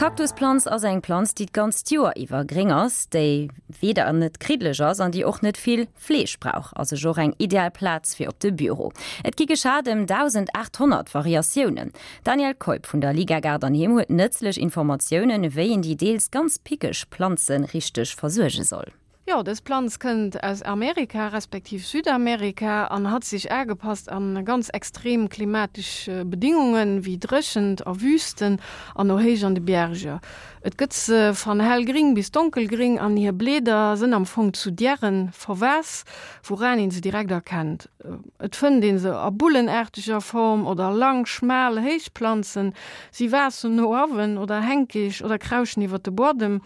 D'Kaktusplanz ass eng Planz, déi d'ganzt Joer iwwer gréng ass, déi weder net kriddeleg ass an déi och net vill Fleeg brauch. Ass ech och eng ideal Plaz fir op de Büro. Et gi geschat ëm 1.800 Variatiounen. D'Danièle Keup vun der Liga Gaart an Heem huet nëtzlech Informatiounen, wéi een déi deels ganz pickeg Planze richteg versuerge soll. Jo, dës Planz kënnt aus Amerika, respektiv Südamerika an hat sich aagepasst an ganz extrem klimatesch Bedingungen wéi Dréchent a Wüsten an o héich an de Bierger. Et gëtt se van hellgring bis donkelgring an hir Bleeder sënn am Fong zu Diären verwaass, wouraan een se direkt erkennt. Et fënnt een se a bullenaarteger Form oder lang, schmaal, héich Planzen. Si waassen no awen oder hänkig oder krauschen iwwert de Buadem.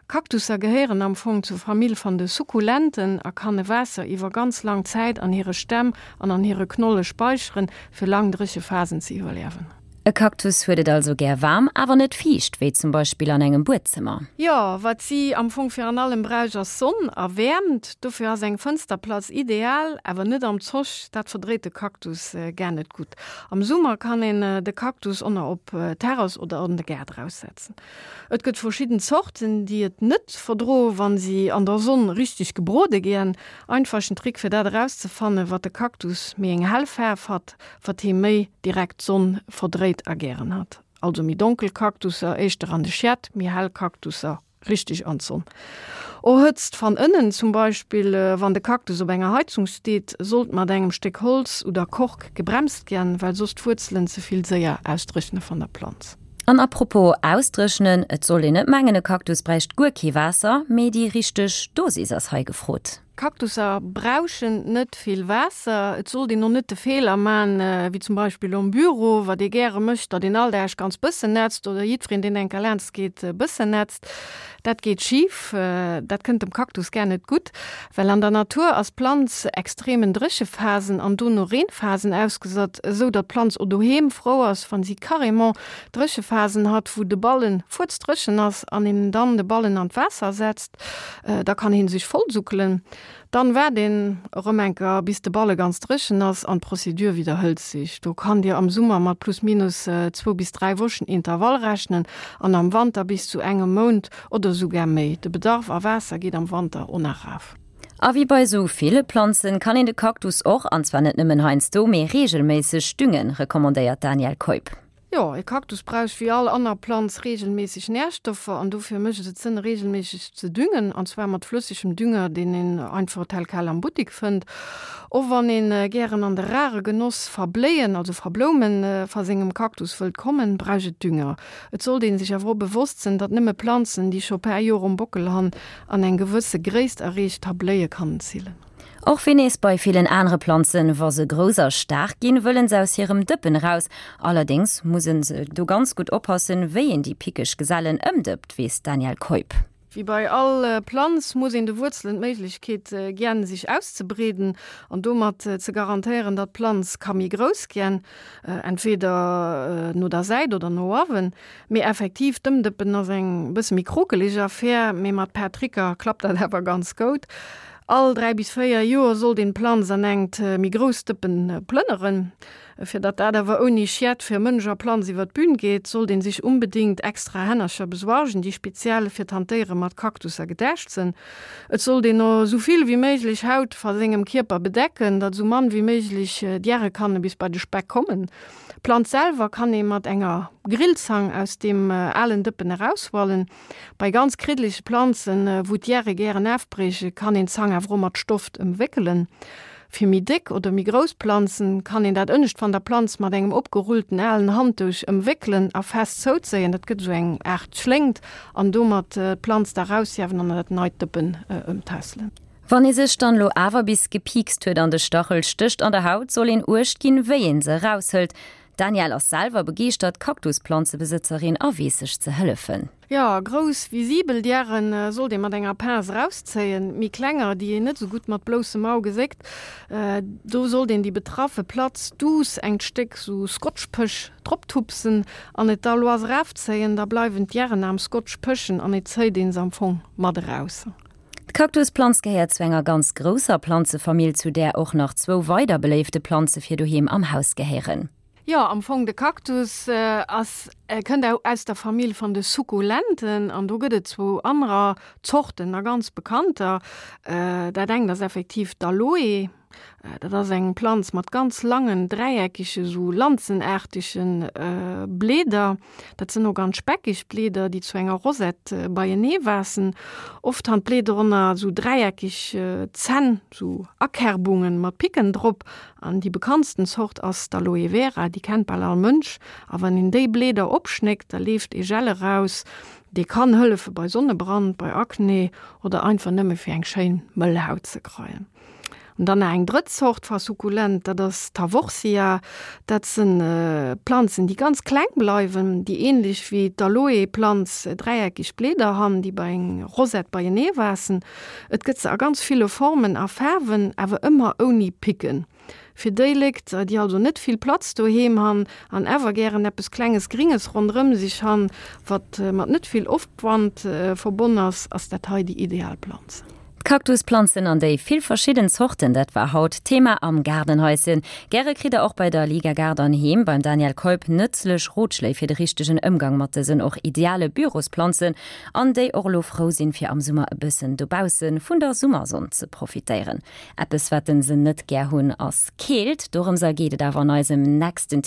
Kaktusser gehéieren am Fong zur Famill van de Sukkulenten a kanne Waasser iwwer ganz lang Zäit an hire Stämm an an hire Knolle speicheren, fir lang dréche Phasen ze iwwerliewen. E Kaktus huet et also gär waarm, awer net fiicht, wéi zum Beispill an engem Buedzëmmer. Jo, wat si am Fong virun allem bräuch ass Sonn a Wäermt. Dofir ass eng Fënsterplatz ideal, awer net am Zoch, dat verdréit de Kaktus gär net gutt. Am Summer kann een de Kaktus onner op d'Terrass oder an de Gaart eraussetzen. Et gëtt verschidden Zorten, déi et net verdroen, wann si an der Sonn richteg gebrode gien. Einfachen Trick fir dat erauszefannen, wat de Kaktus méi eng hell Faarf hat, wat hee méi direkt d'Sonn verdréit a gären hat. Also méi donkel Kaktusser éischter an de Schiet, méi hell Kaktusser richteg an d'Sonn. O Hëtzt van ënnen, zum Beispill wann de Kaktus op enger Heizung steet, sollt mat engem Stéck Holz oder Kork gebremst gien, well soss d'Wuerzelen ze vill séier ausdréchne van der Planz. An apropos ausdréchnen, et sollt een net mengen e Kaktus bräicht guer kee Waasser, mee déi richteg Dosis ass hei gefrot. Kaktusser brauchen net vill Waasser. Et sollt een och net de Feeler man, wéi zum Beispill am Büro, wat ee gäre mécht, datt een all Dag ganz bëssen nätzt oder jiddwereen deen enker laanscht geet bëssen nätzt. Dat geet schif, dat kënnt dem Kaktus gär net gutt, well an der Natur ass d'Planz extremen Dréchephasen an dono Reenphasen ausgesat, esou datt d'Planz o doheem frou ass, wann si carrément Dréchephasen hat, wou de Ballen fuerzdréchen ass an een dann de Ballen an d'Waasser setzt, da kann heen sech vollsuckelen. Dann waart een erëm enker bis de Balle ganz dréchen ass an d'Procédure widderhëlt sich. Do kann dir am Summer mat plus minus zwou bis 3 Wochen Intervall rechnen an am Wanter bis zu engem Mount oder sougar méi. De Bedarf a Waasser geet am Wanter o nach raf. A wéi bei sou ville Planzen kann een de Kaktus och, an zwar net nëmmen heiansdo, mee reegelméisseg düngen, recommandéiert d'Danièle Keup. Jo, e Kaktus brauch wéi all anner Planz reegelméisseg Närstoffer an dofir mécht et Sënn reegelméisseg ze düngen an zwar mat flëssegem Dünger, deen een einfach tel quel am Buttik fënnt. Och wann een gären an de rare Genoss va Bléien, also va Bloumen, va sengem Kaktus wëllt kommen, brauch et Dünger. Et sollt een sech awer och bewosst sënn, datt nëmme Planzen, déi scho paar Joer um Bockel han an eng gewësse Gréisst erreecht ha, Bléie kannen zillen. Och wéi nees bei villen anere Planzen, wa se grouss a staark ginn, wëllen se aus hirem Dëppen eraus. Allerdéngs muss en se do ganz gutt oppassen, wéi een déi pickeg Gesellen ëmdëppt, weess d'Danièle Keup. Wéi bei all Planz muss een de Wuerzelen d'Méiglechkeet gien, sech auszebreeden an domat ze garantéieren, datt d'Planz ka méi grouss gien, entweder no der Säit oder no awen. Mee effektiv, d'Ëmdëppen ass eng bësse méi krokeleg Affär, mee mat paar Tricker klappt dat awer ganz goud. All 3 bis 4 Joer sollt een d'Planz an engt méi grousst Dëppen plënneren. Fir datt dat awer ouni Schied fir Mënsch a Planz iwwer d'Bühn geet, sollt een sech unbedingt extra Hännercher besuergen, déi speziell fir d'Hantéiere mat Kaktusser gedacht sënn. Et sollt een o sou vill wéi méiglech Haut va sengem Kierper bedecken, datt sou mann wéi méiglech Diäre kanne bis bei de Speck kommen. D'Planz selwer kann ee mat enger Grillzang aus deem alen Dëppen eraushualen. Bei ganz kriddelege Planzen, wou d'Järe gären afbriechen, kann een d'Zang awer och mat Stoft ëmwéckelen. Fir méi déck oder méi grouss Planzen kann een dat ënnescht van der Planz mat engem opgerullten alen Handduch ëmwéckelen a fest zouzéien. Dat gëtt esou eng Aart Schléngt an domat d'Planz da raushiewen an an dat neit Dëppen ëmtässelen. Wann ee sech dann lo awer bis gepiikst huet an de Stachel stécht an der Haut, soll een Uecht ginn, wéi een se eraushëlt. D'Danièle ass selwer begeeschtert Kaktusplanzebesëtzerin a weess sech ze hëllefen. Jo, grouss visibel Diären sollt ee mat enger Pince erauszéien. Méi klenger, déi een net esou gutt mat bloussem Au geséckt, do sollt een déi betraffe Platz duuss engt Stéck sou Scotchpësch droptupsen an et da lois erafzéien. Da bleiwen d'Diären am Scotch pëschen an et zéit een se am Fong mat eraus. D'Kaktusplanz gehéiert zu enger ganz grousser Planzefamill, zu där och nach zwou weider beléifte Planze fir doheem am Haus gehéieren. Jo, am Fong de Kaktus ass, kënnt aus der Famill van de Sukkulenten an do gëtt et zwou anerer Zorten a ganz bekannter. Dat engt ass effektiv d'Aloe. Dat ass eng Planz mat ganz langen, dräieckege, sou lanzenaartege Blieder. Dat sënn o ganz speckeg Blieder, déi zu enger Rosette beienee waassen. Oft han d'Blieder ënner sou dräieckeg Zänn, sou Akerbungen mat Picken drop. An déi bekanntsten Zort ass d'Aloe Vera, déi kennt bal all Mënsch. A wann een déi Blieder opschnéckt, da leeft ee Gel eraus, dee kann hëllefe bei Sonnebrand, bei Akne oder einfach nëmme fir eng schéin mëll Haut ze kreien. An dann nach eng drëtt Zort va Sukkulent, dat ass d'Haworthia. Dat sënn Planzen, déi ganz kleng bleiwen, déi ähnlech wéi d'Aloe-Planz dräieckeg Blieder han, déi bei eng Rosette beienee waassen. Et gëtt se a ganz ville Formen a Faarwen, awer ëmmer ouni Picken. Fir déi Lékt, déi also net vill Platz doheem han an awer gären eppes klenges Gringes ronderëm sech han, wat mat net vill Opwand verbonn ass, ass dat hei déi ideal Planz. D'Kaktusplanzen an déi vill verschidden Zorten, dat war haut d'Thema am Gaardenhaischen. Gäre kritt der och bei der Liga Gaart an Heem beim Danielle Keup nëtzlech Rotschléi fir de richtegen Ëmgang mat dësen och ideale Bürosplanzen. An déi och elo frou sinn, fir am Summer e bëssen dobausse vun der Summersonn ze profitéieren. Eppes wat se net gär hunn ass Keelt. Dorëmser geet et awer an eisem nächsten.